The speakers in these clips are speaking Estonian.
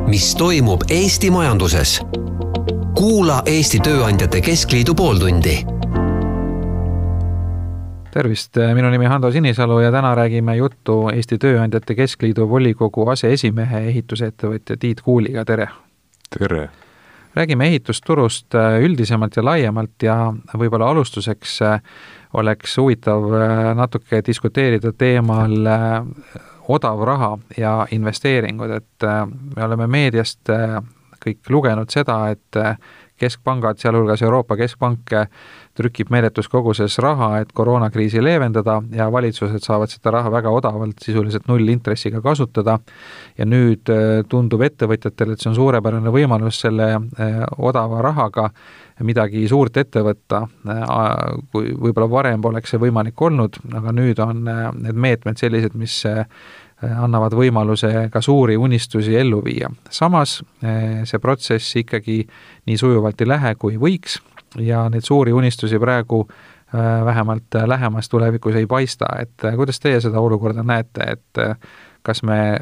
mis toimub Eesti majanduses. Kuula Eesti Tööandjate Keskliidu pooltundi. Tervist, minu nimi Hando Sinisalu ja täna räägime juttu Eesti Tööandjate Keskliidu volikogu aseesimehe ehitusettevõtja Tiit Kuuliga. Tere! Tere! Räägime ehitusturust üldisemalt ja laiemalt ja võib-olla alustuseks oleks huvitav natuke diskuteerida teemal odav raha ja investeeringud, et me oleme meediast kõik lugenud seda, et keskpangad, sealhulgas Euroopa Keskpank, trükib meeletus koguses raha, et koroonakriisi leevendada ja valitsused saavad seda raha väga odavalt, sisuliselt nullintressiga kasutada. Ja nüüd tundub ettevõtjatele, et see on suurepärane võimalus selle odava rahaga midagi suurt ette võtta. Kui võib-olla varem poleks see võimalik olnud, aga nüüd on need meetmed sellised, mis annavad võimaluse ka suuri unistusi ellu viia. Samas see protsess ikkagi nii sujuvalt ei lähe, kui võiks ja need suuri unistusi praegu vähemalt lähemas tulevikus ei paista. Et kuidas teie seda olukorda näete, et kas me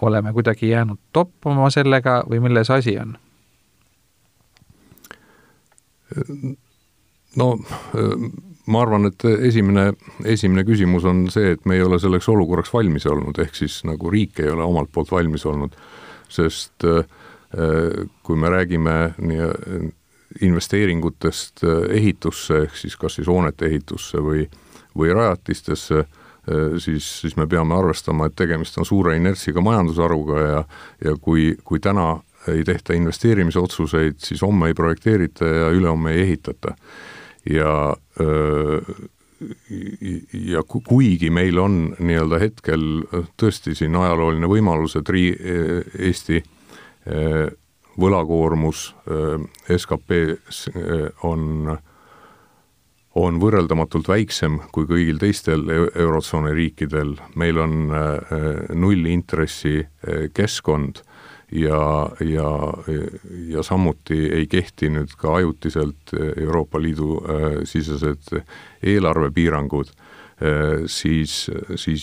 oleme kuidagi jäänud toppama sellega või milles asi on? No, ma arvan, et esimene küsimus on see, et me ei ole selleks olukorraks valmis olnud, ehk siis nagu riik ei ole omalt poolt valmis olnud, sest kui me räägime investeeringutest ehitusse, ehk siis kas siis hoonete ehitusse või rajatistesse, siis me peame arvestama, et tegemist on suure inertsiga majandusharuga ja kui täna ei tehta investeerimisotsuseid, siis homme ei projekteerita ja ülehomme ei ehitata. Ja kuigi meil on nii-öelda hetkel tõesti siin ajalooline võimalus, et Eesti võlakoormus SKP on võrreldamatult väiksem kui kõigil teistel eurotsooni riikidel. Meil on nullintressi keskkond ja samuti ei kehti nüüd ka ajutiselt Euroopa Liidu sisesed eelarvepiirangud, siis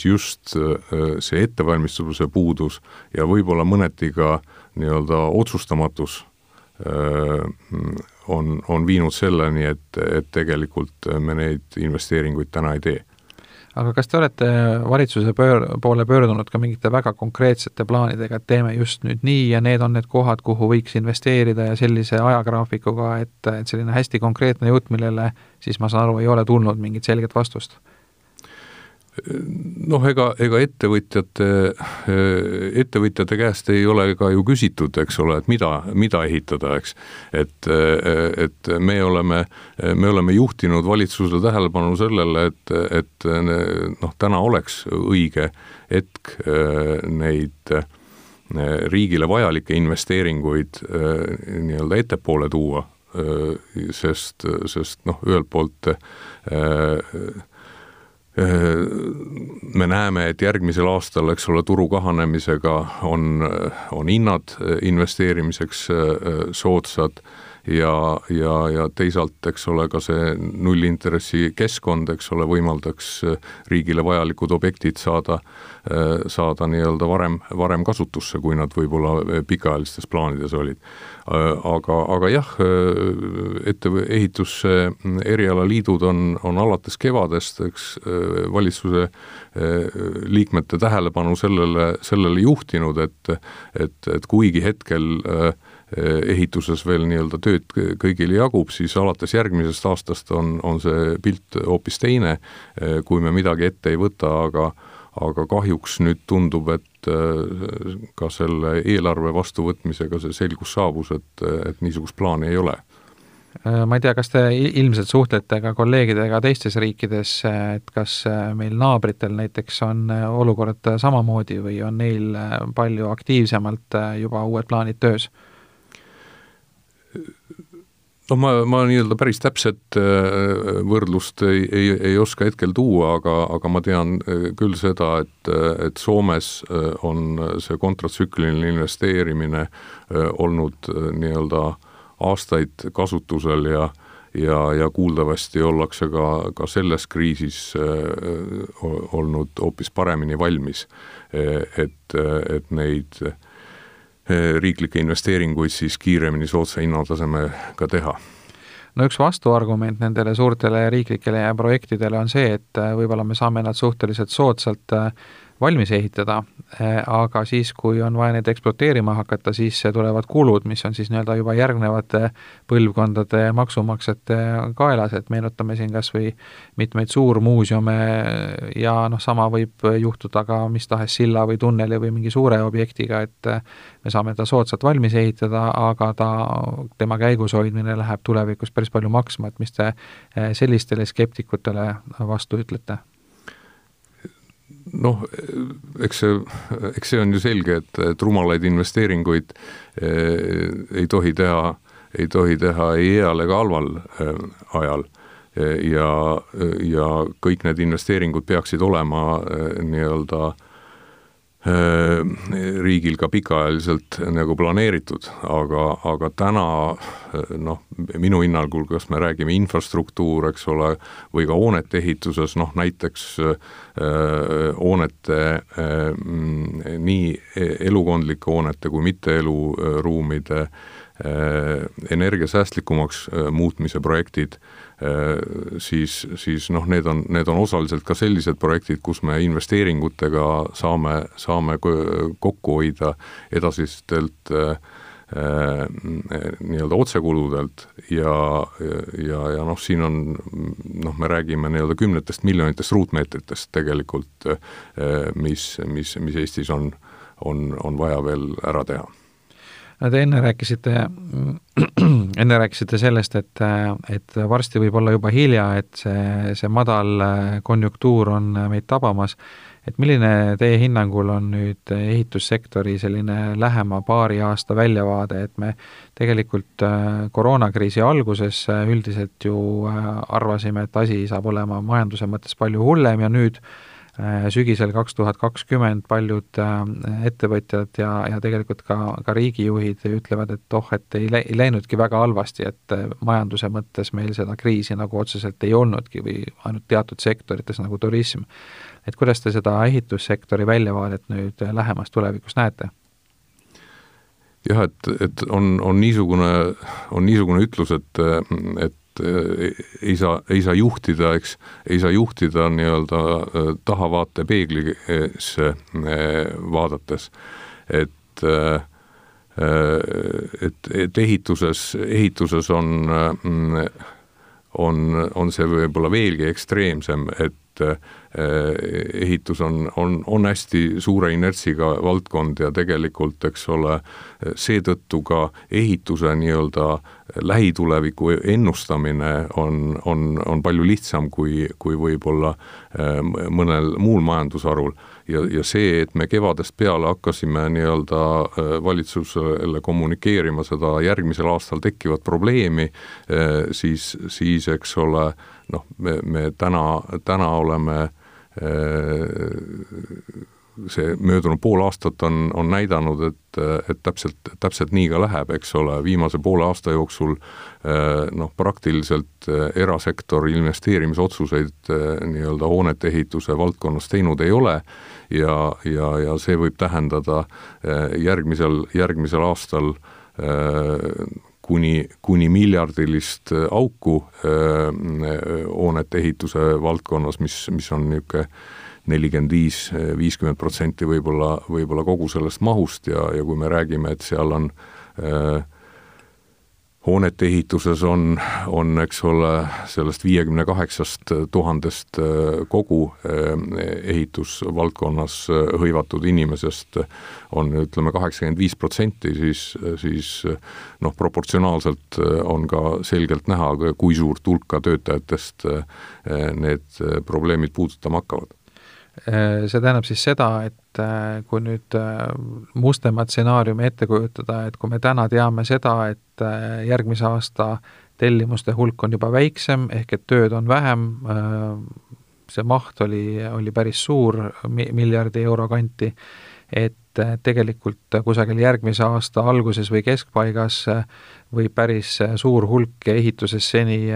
just see ettevalmistuse puudus ja võib-olla mõneti ka nii-öelda otsustamatus on viinud selleni, et tegelikult me neid investeeringuid täna ei tee. Aga kas te olete valitsuse poole pöördunud ka mingite väga konkreetsete plaanidega, et teeme just nüüd nii ja need on need kohad, kuhu võiks investeerida ja sellise ajagraafikuga, et selline hästi konkreetne jutt, millele siis ma saan aru, ei ole tulnud mingit selget vastust? Noh, ega ettevõtjate käest ei ole ka ju küsitud, eks ole, et mida ehitada, eks. Et me oleme juhtinud valitsusele tähelepanu sellele, et täna oleks õige hetk neid riigile vajalikke investeeringuid nii-öelda ettepoole tuua, sest ühelt poolt me näeme, et järgmisel aastal, eks ole, turu kahanemisega on hinnad investeerimiseks soodsad ja teisalt, eks ole, ka see nullintressi keskkond, eks ole, võimaldaks riigile vajalikud objektid saada nii-öelda varem kasutusse, kui nad võib-olla pikaajalistes plaanides olid. Aga jah, ehituse erialaliidud on alates kevadest, eks, valitsuse liikmete tähelepanu sellele juhtinud, et kuigi hetkel ehituses veel nii-öelda tööd kõigile jagub, siis alates järgmisest aastast on see pilt hoopis teine, kui me midagi ette ei võta, aga kahjuks nüüd tundub, et ka selle eelarve vastuvõtmisega see selgus saabus, et niisugust plaani ei ole. Ma ei tea, kas te ilmselt suhtlete ka kolleegidega teistes riikides, et kas meil naabritel näiteks on olukord samamoodi või on neil palju aktiivsemalt juba uued plaanid töös? No ma nii-öelda päris täpset võrdlust ei oska hetkel tuua, aga ma tean küll seda, et Soomes on see kontratsükliline investeerimine olnud nii-öelda aastaid kasutusel ja kuuldavasti ollakse ka selles kriisis olnud hoopis paremini valmis, et neid riiklikke investeeringuid siis kiiremini soodsa hinnatasemega teha. No üks vastuargument nendele suurtele riiklikele projektidele on see, et võib-olla me saame nad suhteliselt soodsalt valmis ehitada, aga siis, kui on vaja neid ekspluateerima hakata, siis tulevad kulud, mis on siis nii-öelda juba järgnevate põlvkondade maksumaksjate kaelas, et meenutame siin kas või mitmeid suurmuuseume ja sama võib juhtuda ka mis tahes silla või tunneli või mingi suure objektiga, et me saame ta soodsalt valmis ehitada, aga tema käigus hoidmine läheb tulevikus päris palju maksma, et mis te sellistele skeptikutele vastu ütlete? Noh, eks see on ju selge, et rumalaid investeeringuid ei tohi teha ei heal ega halval ajal ja kõik need investeeringud peaksid olema nii-öelda riigil ka pikaajaliselt nagu planeeritud, aga täna minu hinnangul, kas me räägime infrastruktuur, eks ole, või ka hoonete ehituses, näiteks hoonete, nii elukondlike hoonete kui mitte eluruumide energiasäästlikumaks muutmise projektid, siis need on osaliselt ka sellised projektid, kus me investeeringutega saame kokku hoida edasistelt nii-öelda otsekuludelt ja siin on, me räägime nii-öelda 10 miljonitest ruutmeetritest tegelikult, mis Eestis on vaja veel ära teha. Te enne rääkisite sellest, et varsti võib olla juba hilja, et see madal konjunktuur on meid tabamas. Et milline teie hinnangul on nüüd ehitussektori selline lähema paari aasta väljavaade, et me tegelikult koroonakriisi alguses üldiselt ju arvasime, et asi saab olema majanduse mõttes palju hullem ja nüüd sügisel 2020 paljud ettevõtjad ja tegelikult ka riigijuhid ütlevad, et ei läinudki väga halvasti, et majanduse mõttes meil seda kriisi nagu otseselt ei olnudki või ainult teatud sektorites nagu turism. Et kuidas te seda ehitussektori väljavaadet nüüd lähemas tulevikus näete? Jah, et on niisugune ütlus, et ei saa juhtida, ei saa juhtida nii-öelda tahavaate peeglisse vaadates, et ehituses on see võib-olla veelgi ekstreemsem, et ehitus on hästi suure inertsiga valdkond ja tegelikult, eks ole, seetõttu ka ehituse nii-öelda lähituleviku ennustamine on palju lihtsam kui võib-olla mõnel muul majandusharul. Ja see, et me kevadest peale hakkasime nii-öelda valitsusele kommunikeerima seda järgmisel aastal tekkivat probleemi, siis eks ole, me täna oleme see möödunud pool aastat on näidanud, et täpselt nii ka läheb, eks ole, viimase poole aasta jooksul praktiliselt erasektor investeerimisotsuseid nii-öelda hoonete ehituse valdkonnas teinud ei ole ja see võib tähendada järgmisel aastal kuni miljardilist auku hoonete ehituse valdkonnas, mis on niisugune 45-50% võib-olla kogu sellest mahust ja kui me räägime, et seal on hoonete ehituses on, eks ole, sellest 58 000 kogu ehitusvaldkonnas hõivatud inimesest on, ütleme, 85%, siis proportsionaalselt on ka selgelt näha, kui suurt hulka töötajatest need probleemid puudutama hakkavad. See tähendab siis seda, et kui nüüd mustemat stsenaariumi ette kujutada, et kui me täna teame seda, et järgmise aasta tellimuste hulk on juba väiksem, ehk et tööd on vähem, see maht oli päris suur, miljardi euro kanti, et tegelikult kusagil järgmise aasta alguses või keskpaigas või päris suur hulk ehituses seni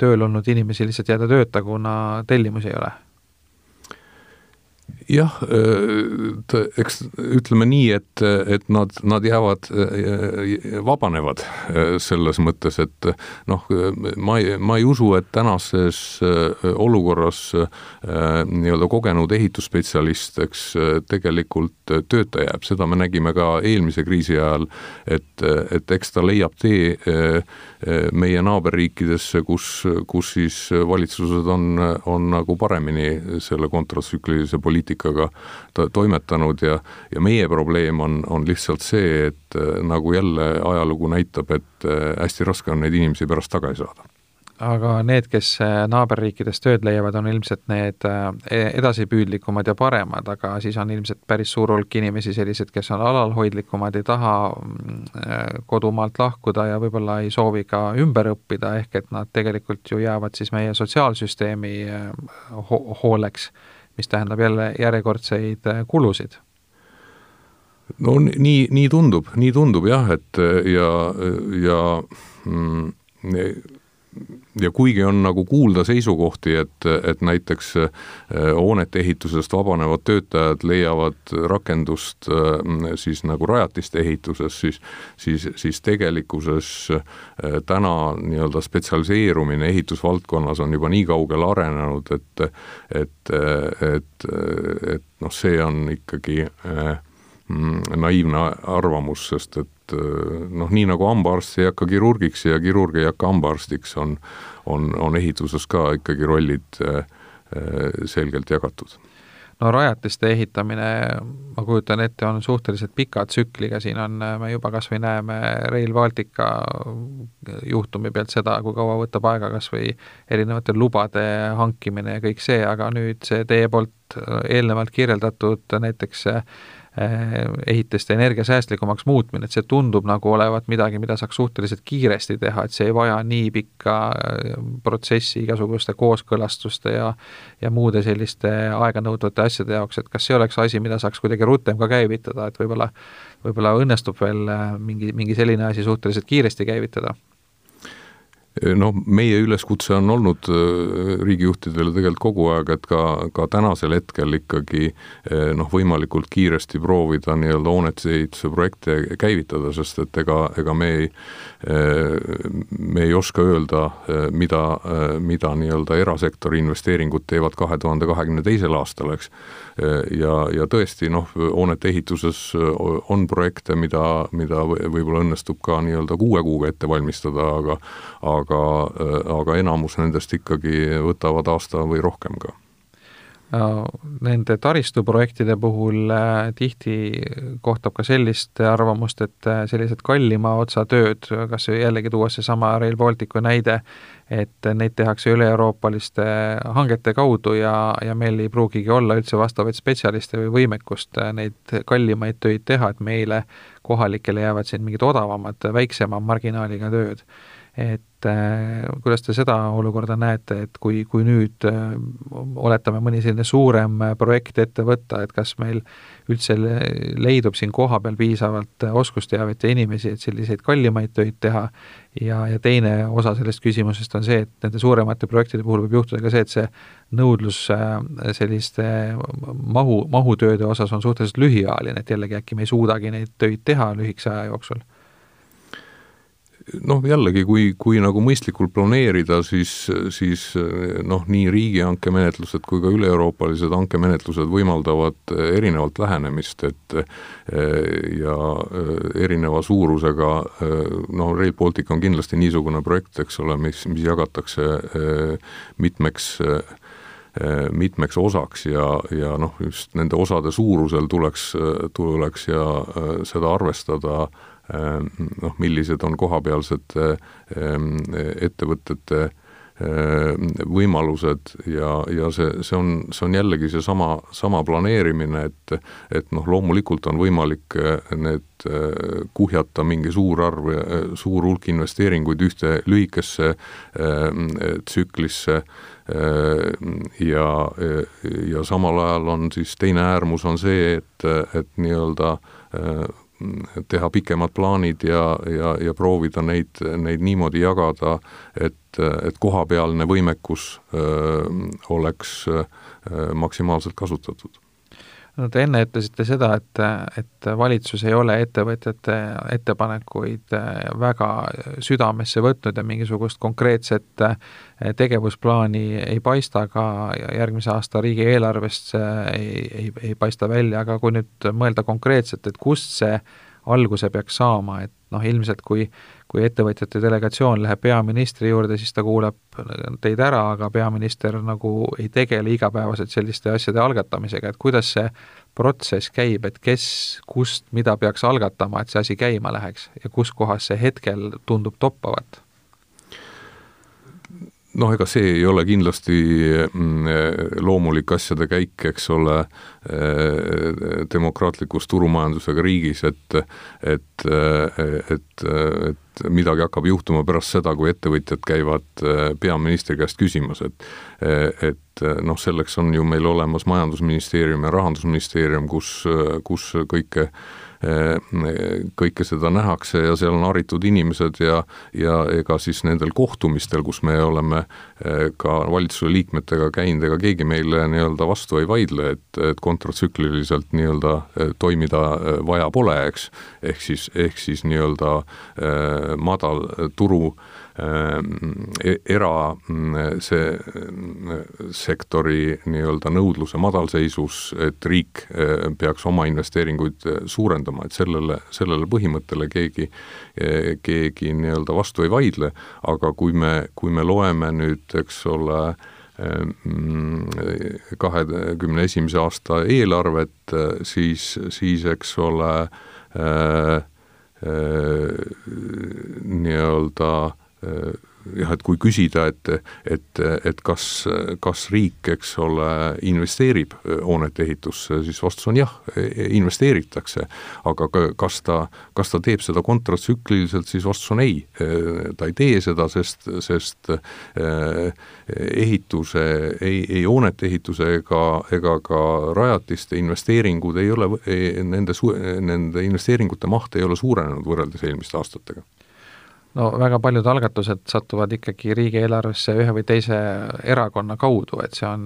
tööl olnud inimesi lihtsalt jääda tööta, kuna tellimusi ei ole. Jah, eks ütleme nii, et nad jäävad, vabanevad selles mõttes, et noh, ma ei usu, et tänases olukorras nii-öelda kogenud ehitusspetsialist, eks tegelikult tööta jääb. Seda me nägime ka eelmise kriisi ajal, et eks ta leiab tee meie naaberriikidesse, kus siis valitsused on nagu paremini selle kontratsüklilise poliitikaga toimetanud ja meie probleem on lihtsalt see, et nagu jälle ajalugu näitab, et hästi raske on neid inimesi pärast tagasi saada. Aga need, kes naaberriikides tööd leiavad, on ilmselt need edasipüüdlikumad ja paremad, aga siis on ilmselt päris suur hulk inimesi sellised, kes on alalhoidlikumad, ei taha kodumaalt lahkuda ja võib-olla ei soovi ka ümber õppida, ehk et nad tegelikult ju jäävad siis meie sotsiaalsüsteemi hooleks, mis tähendab jälle järjekordseid kulusid. No nii tundub jah, et ja kuigi on nagu kuulda seisukohti, et näiteks hoonete ehitusest vabanevad töötajad leiavad rakendust siis nagu rajatiste ehituses, siis tegelikkuses täna nii-öelda spetsialiseerumine ehitusvaldkonnas on juba nii kaugele arenenud, et noh, see on ikkagi naiivne arvamus, sest et noh, nii nagu hambaarst ei hakka kirurgiks ja kirurg ei hakka hambaarstiks, on ehituses ka ikkagi rollid selgelt jagatud. No rajatiste ehitamine, ma kujutan ette, on suhteliselt pika tsükliga, siin on, me juba kas või näeme Rail Baltica juhtumi pealt seda, kui kaua võtab aega kas või erinevate lubade hankimine ja kõik see, aga nüüd see teie poolt eelnevalt kirjeldatud näiteks ehitiste energiasäästlikumaks muutmine, et see tundub nagu olevat midagi, mida saaks suhteliselt kiiresti teha, et see ei vaja nii pikka protsessi igasuguste kooskõlastuste ja muude selliste aeganõudvate asjade jaoks, et kas see oleks asi, mida saaks kuidagi rutem ka käivitada, et võib-olla õnnestub veel mingi selline asi suhteliselt kiiresti käivitada? No meie üleskutse on olnud riigijuhtidele tegelikult kogu aeg, et ka tänasel hetkel ikkagi noh, võimalikult kiiresti proovida nii-öelda hoonetehituse projekte käivitada, sest et ega me ei oska öelda, mida nii-öelda erasektori investeeringud teevad 2022. aastal, eks. Ja tõesti, noh, hoonete ehituses on projekte, mida võib-olla õnnestub ka nii-öelda 6 kuuga ette valmistada, aga enamus nendest ikkagi võtavad aasta või rohkem ka. Nende taristuprojektide puhul tihti kohtab ka sellist arvamust, et sellised kallima otsa tööd, kas jällegi tuua see sama Rail Balticu näide, et neid tehakse üle-euroopaliste hangete kaudu ja meil ei pruugigi olla üldse vastavaid spetsialiste või võimekust neid kallimaid töid teha, et meile kohalikele jäävad siin mingid odavamad, väiksema marginaaliga tööd. Et kuidas te seda olukorda näete, et kui nüüd oletame mõni selline suurem projekt ette võtta, et kas meil üldse leidub siin koha peal piisavalt oskusteavet ja inimesi, et selliseid kallimaid töid teha ja teine osa sellest küsimusest on see, et nende suuremate projektide puhul võib juhtuda ka see, et see nõudlus selliste mahutööde osas on suhteliselt lühiajaline, et jällegi äkki me ei suudagi neid töid teha lühikese aja jooksul. Noh, jällegi, kui nagu mõistlikult planeerida, siis noh, nii riigihanke menetlused kui ka üle-euroopalised hankemenetlused võimaldavad erinevalt lähenemist, et ja erineva suurusega, noh, Rail Baltic on kindlasti niisugune projekt, eks ole, mis jagatakse mitmeks osaks ja noh, just nende osade suurusel tuleks ja seda arvestada, noh, millised on kohapealsed ettevõtete võimalused ja see on jällegi see sama planeerimine, et noh, loomulikult on võimalik need kuhjata mingi suur hulk investeeringuid ühte lühikesse tsüklisse ja samal ajal on siis teine äärmus on see, et nii-öelda teha pikemad plaanid ja proovida neid niimoodi jagada, et kohapealne võimekus oleks maksimaalselt kasutatud. No te enne ütlesite seda, et valitsus ei ole ettevõtjate ettepanekuid väga südamesse võtnud ja mingisugust konkreetset tegevusplaani ei paista, ka järgmise aasta riigieelarvest ei paista välja, aga kui nüüd mõelda konkreetselt, et kust see alguse peaks saama, et ilmselt kui ettevõtjate delegatsioon läheb peaministri juurde, siis ta kuulab teid ära, aga peaminister nagu ei tegele igapäevaselt selliste asjade algatamisega, et kuidas see protsess käib, et kes, kust, mida peaks algatama, et see asi käima läheks ja kus kohas see hetkel tundub toppavat? Ega see ei ole kindlasti loomulik asjade käik, eks ole, demokraatlikus turumajandusega riigis, et midagi hakkab juhtuma pärast seda, kui ettevõtjad käivad peaministri käest küsimas, et selleks on ju meil olemas majandusministeerium ja rahandusministeerium, kus kõike seda nähakse ja seal on haritud inimesed ja ega siis nendel kohtumistel, kus me oleme ka valitsuse liikmetega käinud, ega keegi meile nii-öelda vastu ei vaidle, et kontratsükliliselt nii-öelda toimida vaja pole, eks, ehk siis nii-öelda madal turu sektori nii-öelda nõudluse madalseisus, et riik peaks oma investeeringuid suurendama, et sellele põhimõttele keegi nii-öelda vastu ei vaidle, aga kui me loeme nüüd, eks ole, 2021. aasta eelarvet, siis eks ole, nii-öelda et kui küsida, et kas riik, eks ole, investeerib hoonete ehitusse, siis vastus on jah, investeeritakse, aga kas ta teeb seda kontratsükliliselt, siis vastus on ei. Ta ei tee seda, sest ehituse, ei hoonete ehituse ega ka rajatiste investeeringud ei ole, nende investeeringute maht ei ole suurenenud võrreldes eelmiste aastatega. No väga paljud algatused satuvad ikkagi riigieelarvesse ühe või teise erakonna kaudu, et see on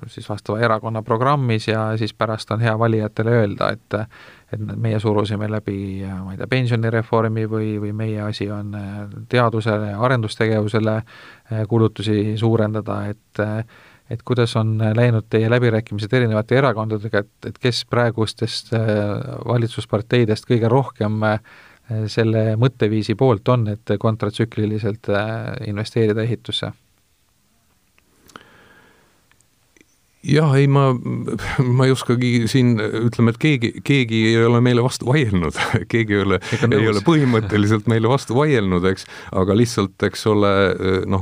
siis vastava erakonna programmis ja siis pärast on hea valijatele öelda, et meie surusime läbi, ma ei tea, pensionireformi või meie asi on teadusele ja arendustegevusele kulutusi suurendada, et kuidas on läinud teie läbirääkimised erinevate erakondadega, et kes praegustest valitsusparteidest kõige rohkem selle mõtteviisi poolt on, et kontratsükliliselt investeerida ehitusse? Jah, ei, ma ei oskagi siin, ütleme, et keegi ei ole meile vastu vaielnud, keegi ei ole põhimõtteliselt meile vastu vaielnud, eks, aga lihtsalt, eks ole,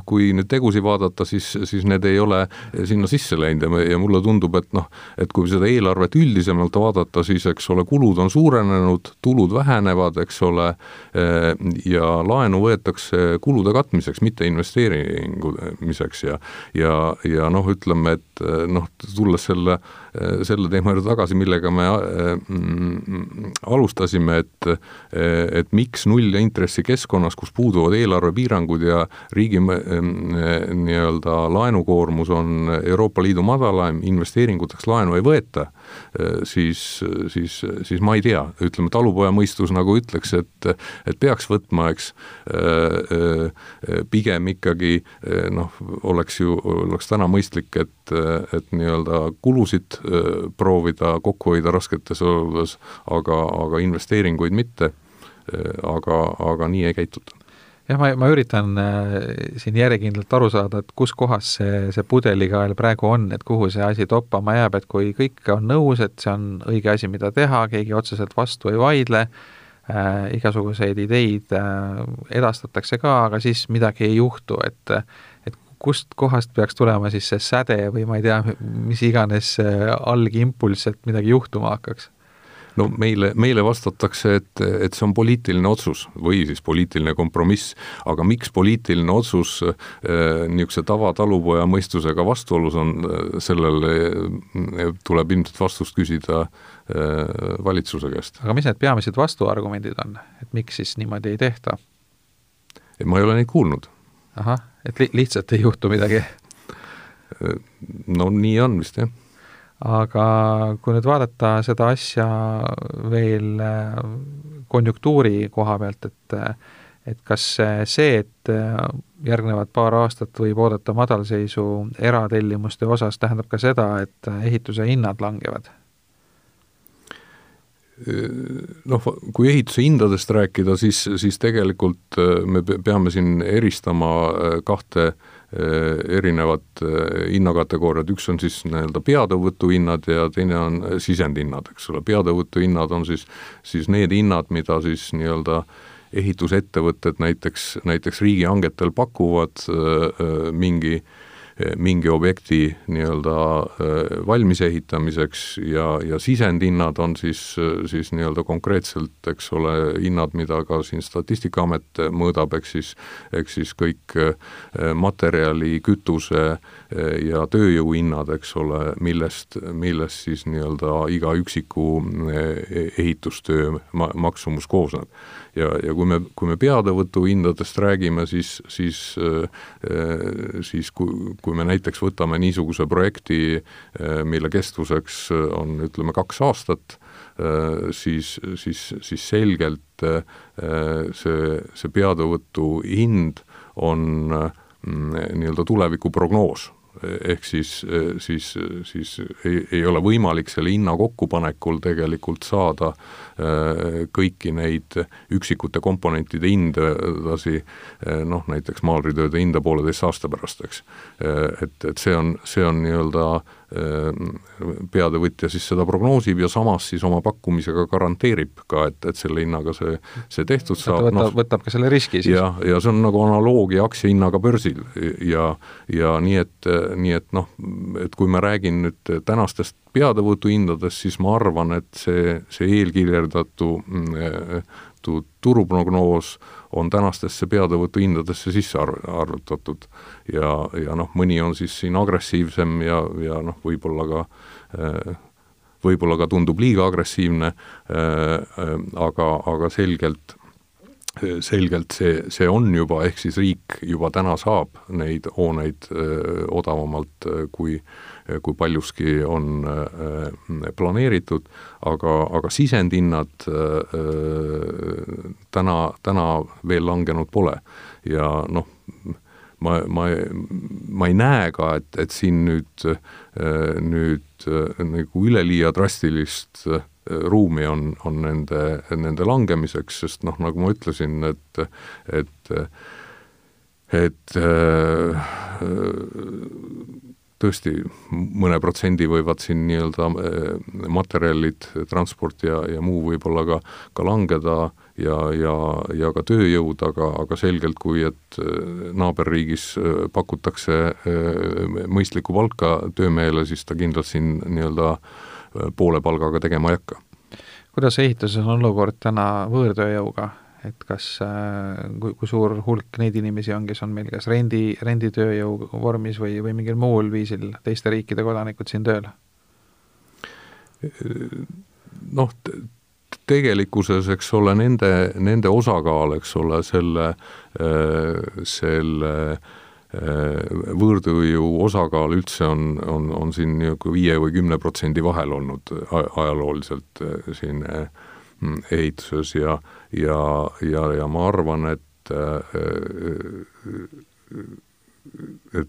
kui nüüd tegusi vaadata, siis need ei ole sinna sisse läinud ja mulle tundub, et kui seda eelarvet üldisemalt vaadata, siis, eks ole, kulud on suurenenud, tulud vähenevad, eks ole, ja laenu võetakse kulude katmiseks, mitte investeeringumiseks ja ütleme, et tulles selle teema juurde tagasi, millega me alustasime, et miks null intressi keskkonnas, kus puuduvad eelarvepiirangud ja riigi nii-öelda laenukoormus on Euroopa Liidu madalaim, investeeringuteks laenu ei võeta, siis ma ei tea, ütleme, talupoja mõistus nagu ütleks, et peaks võtma, eks, pigem ikkagi oleks täna mõistlik, et nii-öelda kulusid proovida kokku hoida rasketes oludes, aga investeeringuid mitte, aga nii ei käituta. Jah, ma üritan siin järjekindlalt aru saada, et kus kohas see pudelikael praegu on, et kuhu see asi toppama jääb, et kui kõik on nõus, et see on õige asi, mida teha, keegi otseselt vastu ei vaidle, igasuguseid ideid edastatakse ka, aga siis midagi ei juhtu, et kust kohast peaks tulema siis see säde või ma ei tea, mis iganes algimpulss, et midagi juhtuma hakkaks? No meile vastatakse, et see on poliitiline otsus või siis poliitiline kompromiss, aga miks poliitiline otsus niisuguse tavatalupoja mõistusega vastuolus on, sellele tuleb ilmselt vastust küsida valitsuse käest. Aga mis need peamised vastuargumendid on, et miks siis niimoodi ei tehta? Ma ei ole neid kuulnud. Et lihtsalt ei juhtu midagi? No nii on vist, jah. aga kui nüüd vaadata seda asja veel konjunktuuri koha pealt, et kas see, et järgnevad paar aastat võib oodata madalseisu eratellimuste osas, tähendab ka seda, et ehituse hinnad langevad? Noh, kui ehituse hindadest rääkida, siis tegelikult me peame siin eristama kahte erinevat hinnakategooriad, üks on siis nii-öelda peatõuvutuhinnad ja teine on sisendhinnad, eks ole. Peatõuvutuhinnad on siis need hinnad, mida siis nii-öelda ehitusettevõtted näiteks riigihangetel pakuvad mingi objekti nii-öelda valmis ehitamiseks ja sisendhinnad on siis nii-öelda konkreetselt, eks ole, hinnad, mida ka siin Statistikaamet mõõdab, eks siis kõik materjali, kütuse ja tööjõu hinnad, eks ole, millest siis nii-öelda iga üksiku ehitustöö maksumus koosneb. Ja kui me peatõuvutu hindadest räägime, siis kui me näiteks võtame niisuguse projekti, mille kestvuseks on, ütleme, 2 aastat, siis selgelt see peatõuvutu hind on nii-öelda tulevikuprognoos. Ehk siis ei ole võimalik selle hinna kokkupanekul tegelikult saada kõiki neid üksikute komponentide hindadasi, noh, näiteks maalritööde hinda 1,5 aasta pärast, eks. Et see on nii-öelda peatõvõtja siis seda prognoosib ja samas siis oma pakkumisega garanteerib ka, et selle hinnaga see tehtud saab. Võtab ka selle riski siis. Ja see on nagu analoogia aktsiahinnaga börsil ja nii et noh, et kui ma räägin nüüd tänastest peatõvutu hindadest, siis ma arvan, et see eelkirjeldatu turuprognoos on tänastesse peatõvutu hindadesse sisse arvutatud ja noh, mõni on siis siin agressiivsem ja noh, võib-olla ka tundub liiga agressiivne, aga selgelt see on juba, ehk siis riik juba täna saab neid hooneid odavamalt, kui paljuski on planeeritud, aga sisendhinnad täna veel langenud pole ja noh, ma ei näe ka, et siin nüüd nagu üleliia drastilist ruumi on nende langemiseks, sest noh, nagu ma ütlesin, et tõesti mõne protsendi võivad siin nii-öelda materjalid, transport ja muu võib-olla ka langeda ja ka tööjõud, aga selgelt, kui et naaberriigis pakutakse mõistlikku palka töömehele, siis ta kindlalt siin nii-öelda poole palgaga tegema ei hakka. Kuidas ehituses on olukord täna võõrtööjõuga? Et kas, kui suur hulk neid inimesi on, kes on meil kas renditööjõu vormis või mingil muul viisil teiste riikide kodanikud siin tööl? Noh, tegelikkuses, eks ole, nende osakaal, eks ole, selle võõrtööjõu osakaal üldse on siin 5 või 10% vahel olnud ajalooliselt siin ehituses ja ma arvan, et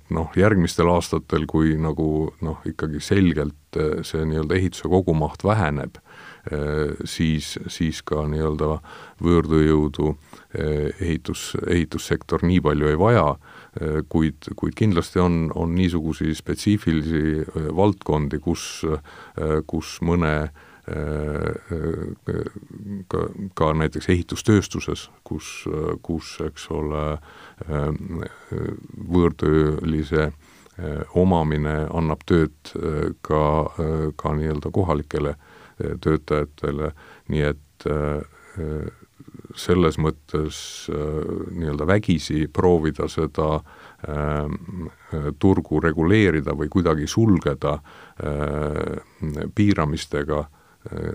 noh, järgmistel aastatel, kui nagu noh, ikkagi selgelt see nii-öelda ehituse kogumaht väheneb, siis ka nii-öelda võõrtööjõudu ehitussektor nii palju ei vaja, kuid kindlasti on niisugusi spetsiifilisi valdkondi, kus mõne ka näiteks ehitustööstuses, kus eks ole võõrtöölise omamine annab tööd ka nii-öelda kohalikele töötajatele, nii et selles mõttes nii-öelda vägisi proovida seda turgu reguleerida või kuidagi sulgeda piiramistega,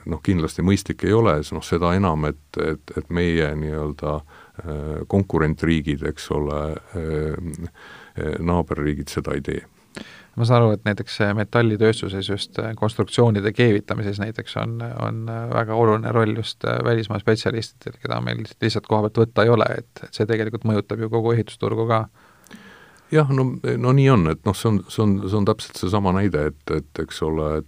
noh, kindlasti mõistlik ei ole, noh, seda enam, et meie nii-öelda konkurentriigid, eks ole, naaberriigid seda ei tee. Ma saan aru, et näiteks metallitööstuses just konstruktsioonide keevitamises näiteks on väga oluline roll just välismaa spetsialistidel, keda meil lihtsalt koha pealt võtta ei ole, et see tegelikult mõjutab ju kogu ehitusturgu ka. Jah, no nii on, et see on täpselt see sama näide, et eks ole,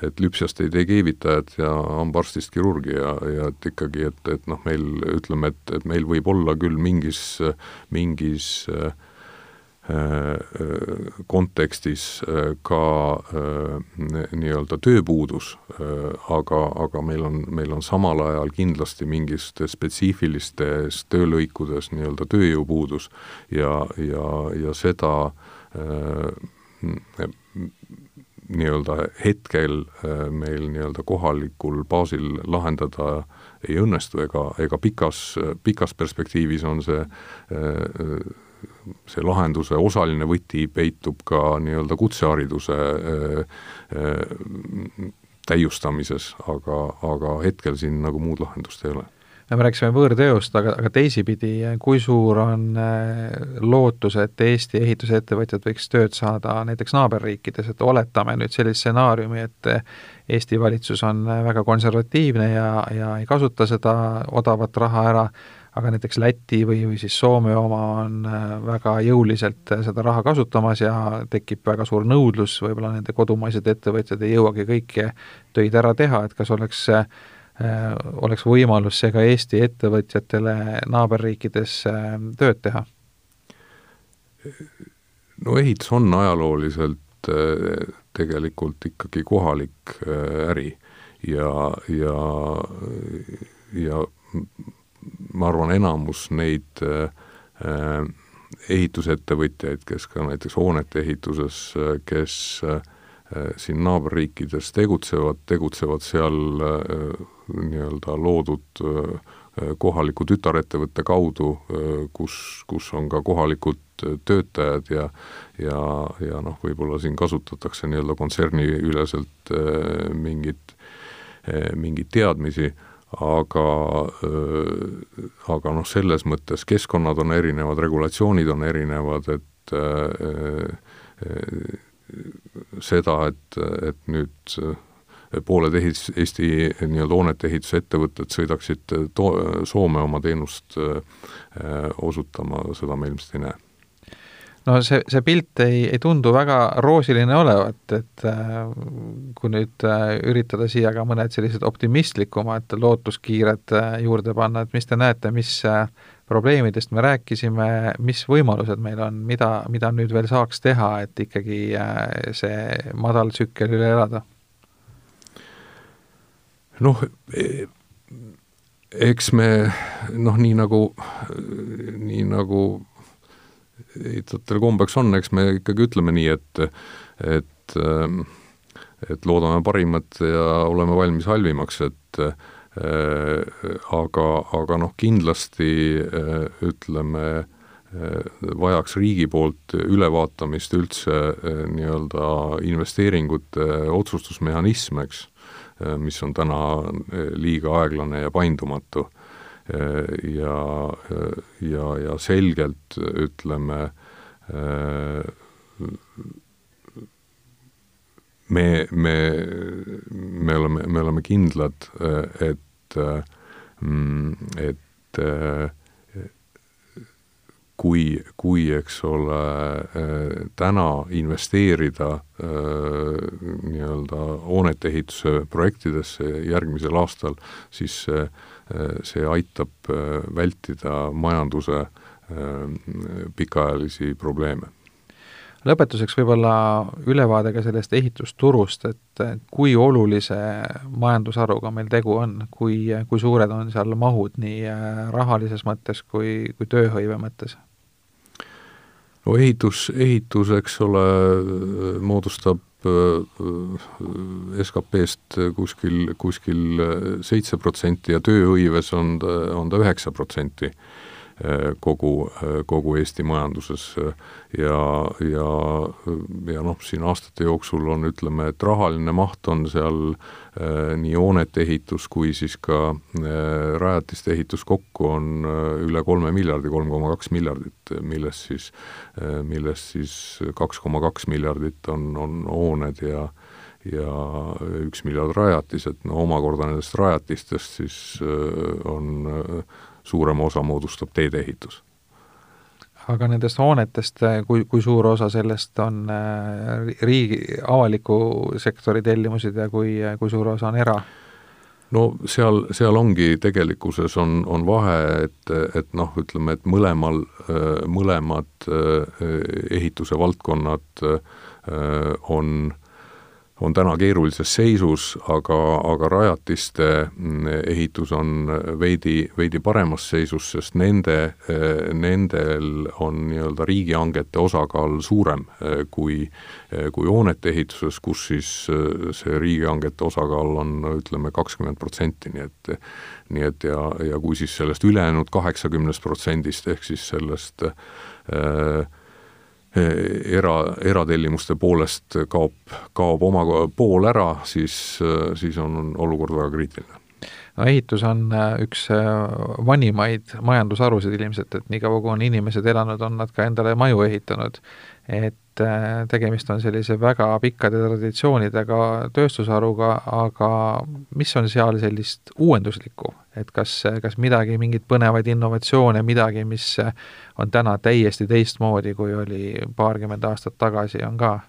et lüpsjast ei tee keevitajad ja hambaarstist kirurgi ja et ikkagi, et meil ütleme, et meil võib olla küll mingis kontekstis ka nii-öelda tööpuudus, aga meil on samal ajal kindlasti mingist spetsiifilistes töölõikudes nii-öelda tööjõupuudus ja seda nii-öelda hetkel meil nii-öelda kohalikul baasil lahendada ei õnnestu ega pikas perspektiivis on see lahenduse osaline võti peitub ka nii-öelda kutsehariduse täiustamises, aga hetkel siin nagu muud lahendust ei ole. Me rääkisime võõrtööst, aga teisipidi, kui suur on lootus, et Eesti ehitusettevõtjad võiks tööd saada näiteks naaberriikides, et oletame nüüd sellist stsenaariumi, et Eesti valitsus on väga konservatiivne ja ei kasuta seda odavat raha ära, aga näiteks Läti või siis Soome oma on väga jõuliselt seda raha kasutamas ja tekib väga suur nõudlus, võib-olla nende kodumaised ettevõtjad ei jõuagi kõiki töid ära teha, et kas oleks võimalus see ka Eesti ettevõtjatele naaberriikides tööd teha? No ehitus on ajalooliselt tegelikult ikkagi kohalik äri ja ma arvan, enamus neid ehitusettevõtjaid, kes ka näiteks hoonete ehituses, kes siin naaberriikides tegutsevad seal nii-öelda loodud kohaliku tütarettevõtte kaudu, kus on ka kohalikud töötajad ja võib-olla siin kasutatakse nii-öelda kontserni üleselt mingit teadmisi, aga selles mõttes keskkonnad on erinevad, regulatsioonid on erinevad, et seda, et nüüd pooled Eesti nii-öelda hoonete ehitusettevõtted sõidaksid Soome oma teenust osutama, seda me ilmselt ei näe. No see pilt ei tundu väga roosiline olevat, et kui nüüd üritada siia ka mõned sellised optimistlikumad lootuskiired juurde panna, et mis te näete, mis probleemidest me rääkisime, mis võimalused meil on, mida nüüd veel saaks teha, et ikkagi see madal tsükkel üle elada? Eks me nii nagu ehitajatel kombeks on, eks me ikkagi ütleme nii, et loodame parimat ja oleme valmis halvimaks, aga kindlasti ütleme, vajaks riigi poolt ülevaatamist üldse nii-öelda investeeringute otsustusmehhanism, eks, mis on täna liiga aeglane ja paindumatu. Ja selgelt ütleme, me oleme kindlad, et kui eks ole täna investeerida nii-öelda hoonete ehituse projektidesse järgmisel aastal, siis see aitab vältida majanduse pikaajalisi probleeme. Lõpetuseks võib-olla ülevaade ka sellest ehitusturust, et kui olulise majandusharuga meil tegu on, kui suured on seal mahud nii rahalises mõttes kui tööhõive mõttes? No ehitus, eks ole, moodustab SKP-st kuskil 7% ja tööhõives on ta 9%. kogu Eesti majanduses ja noh, siin aastate jooksul on, ütleme, et rahaline maht on seal nii hoonete ehitus kui siis ka rajatiste ehitus kokku on üle 3 miljardi, 3,2 miljardit, millest siis 2,2 miljardit on hooned ja 1 miljard rajatised, no omakorda nendest rajatistest siis on suurema osa moodustab teedeehitus. Aga nendest hoonetest, kui suur osa sellest on riigi avaliku sektori tellimused ja kui suur osa on era? No seal ongi tegelikkuses on vahe, et noh, ütleme, et mõlemad ehituse valdkonnad on täna keerulises seisus, aga rajatiste ehitus on veidi paremas seisus, sest nendel on nii-öelda riigihangete osakaal suurem kui hoonete ehituses, kus siis see riigihangete osakaal on, ütleme, 20%, nii et ja kui siis sellest ülejäänud 80% ehk siis sellest eratellimuste poolest kaob oma pool ära, siis on olukord väga kriitiline. No ehitus on üks vanimaid majandusharusid ilmselt, et nii kaua kui on inimesed elanud, on nad ka endale maju ehitanud, et tegemist on sellise väga pikkade traditsioonidega tööstusharuga, aga mis on seal sellist uuenduslikku, et kas midagi, mingid põnevaid innovatsioone, midagi, mis on täna täiesti teistmoodi, kui oli paarkümmend aastat tagasi, on ka?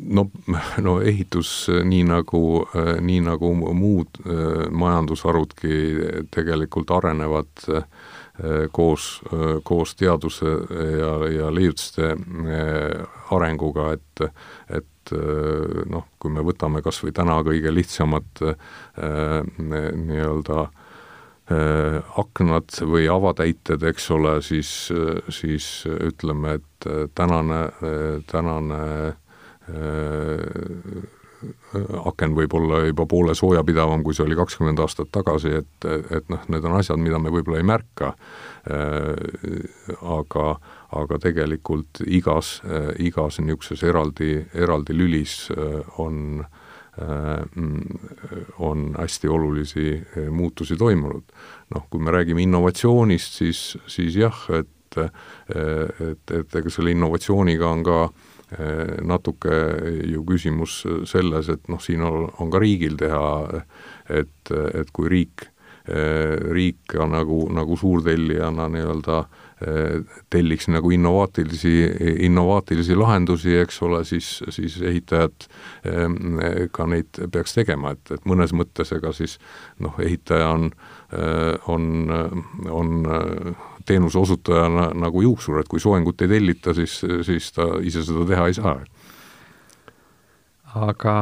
No ehitus nii nagu muud majandusharudki tegelikult arenevad koos teaduse ja leiutuste arenguga, et noh, kui me võtame kas või täna kõige lihtsamad nii-öelda aknad või avatäited, eks ole, siis ütleme, et tänane aken võib olla juba poole soojapidavam, kui see oli 20 aastat tagasi, et noh, need on asjad, mida me võib-olla ei märka, aga tegelikult igas niisuguses eraldi lülis on hästi olulisi muutusi toimunud. Noh, kui me räägime innovatsioonist, siis jah, et ega selle innovatsiooniga on ka natuke ju küsimus selles, et noh, siin on ka riigil teha, et kui riik nagu suurtellijana nii-öelda telliks nagu innovaatilisi lahendusi, eks ole, siis ehitajad ka neid peaks tegema, et mõnes mõttes ega siis noh, ehitaja on teenuse osutajana nagu juuksur, et kui soengut ei tellita, siis ta ise seda teha ei saa. Aga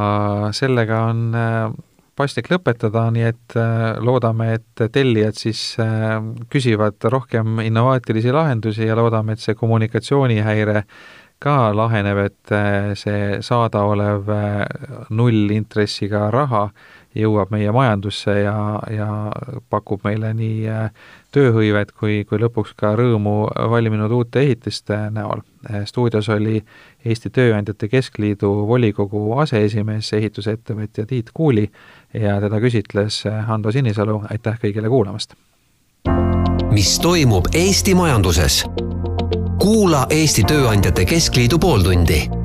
sellega on paslik lõpetada, nii et loodame, et tellijad siis küsivad rohkem innovaatilisi lahendusi ja loodame, et see kommunikatsioonihäire ka laheneb, et see saadaolev nullintressiga raha jõuab meie majandusse ja pakub meile nii tööhõivet kui lõpuks ka rõõmu valminud uute ehitiste näol. Stuudios oli Eesti Tööandjate Keskliidu volikogu aseesimees, ehitusettevõtja Tiit Kuuli ja teda küsitles Hando Sinisalu. Aitäh kõigile kuulamast! Mis toimub Eesti majanduses? Kuula Eesti Tööandjate Keskliidu pooltundi.